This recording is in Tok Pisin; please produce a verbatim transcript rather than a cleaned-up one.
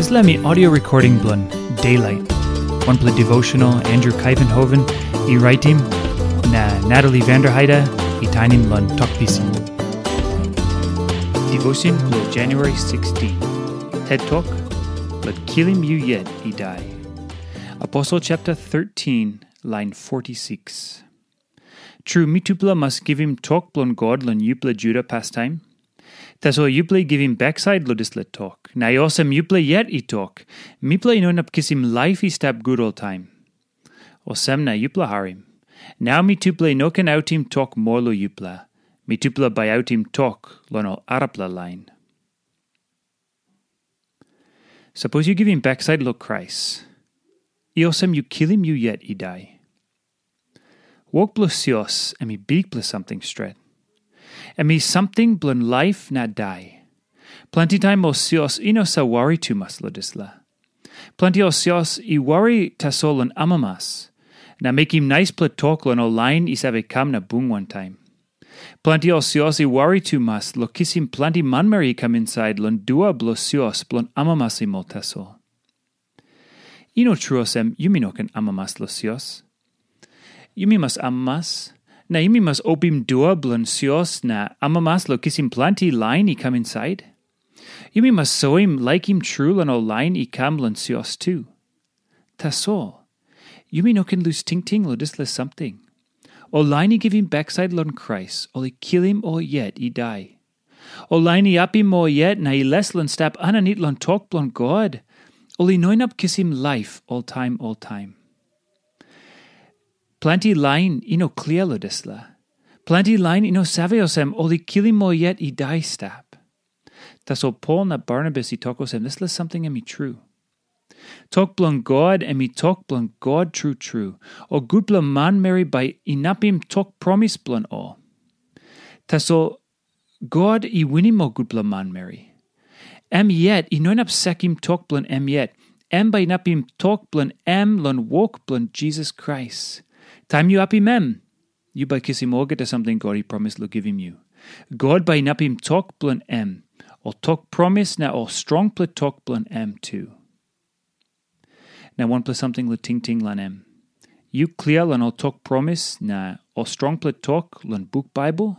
Dispela mi audio recording bilong Daylight, wanpela devotional Andrew Kuyvenhoven i raitim, na Natalie Vanderheide i tainim long Tok Pisin. Devotion bilong January sixteen. Tet Tok, Bai Kilim Yu Yet I Dai. Aposel chapter thirteen, lain forty-six. Tru, mitupela mas givim tok bilong God long yupela Juda pastaim. Tasol yupela i givim baksait long dispela tok, na i olsem yupela yet i tok, mipela i no inap kisim laip i stap gut oltaim. Olsem na yupela harim. Nau mitupela i no ken autim tok moa long yupela. Mitupela bai autim tok long ol arapela lain. Sapos yu givim baksait long Krais, i olsem yu kilim yu yet i dai. Wok bilong sios em i bikpela samting stret. Em i samting bilong laip na dai. Planti taim ol sios i no save wari tumas long dispela. Planti ol sios i wari tasol long amamas, na mekim naispela tok long ol lain i save kam na bung wantaim. Planti ol sios i wari tumas long kisim planti manmeri i kam insait long dua bilong sios bilong amamasim ol tasol. I no tru olsem yumi no ken amamas long sios. Yumi mas amamas, na yumi mas opim dua bilong sios na amamas long kisim planti lain i kam insait. Yumi mas soim laikim tru long ol lain i kam long sios tu. Tasol, yumi no ken lus tingting long dispela samting. Ol lain i givim baksait long Krais, ol i kilim ol yet i dai. Ol lain i apim ol yet na i les long stap aninit long tok bilong God, ol i no inap kisim laip oltaim oltaim. Planti lain i no klia long dispela. Planti lain i no save olsem ol i kilim ol yet i dai stap. Tasol Pol na Barnabas i tok olsem dispela samting em i tru. Tok bilong God em i tok bilong God tru tru, o gutpela manmeri bai inapim tok promis bilong ol. Tasol God i winim ol gutpela manmeri. Em yet i no inap sakim tok bilong em yet. Em bai inapim tok bilong em long wok bilong Jisas Krais. Taim yu apim em, yu bai kisim olgeta samting God i promis long givim yu. God bai inapim tok bilong em, ol tok promis na ol strongpela tok bilong em tu. Na wanpela samting long tingting long em. Yu klia long ol tok promis na ol strongpela tok long buk Baibel?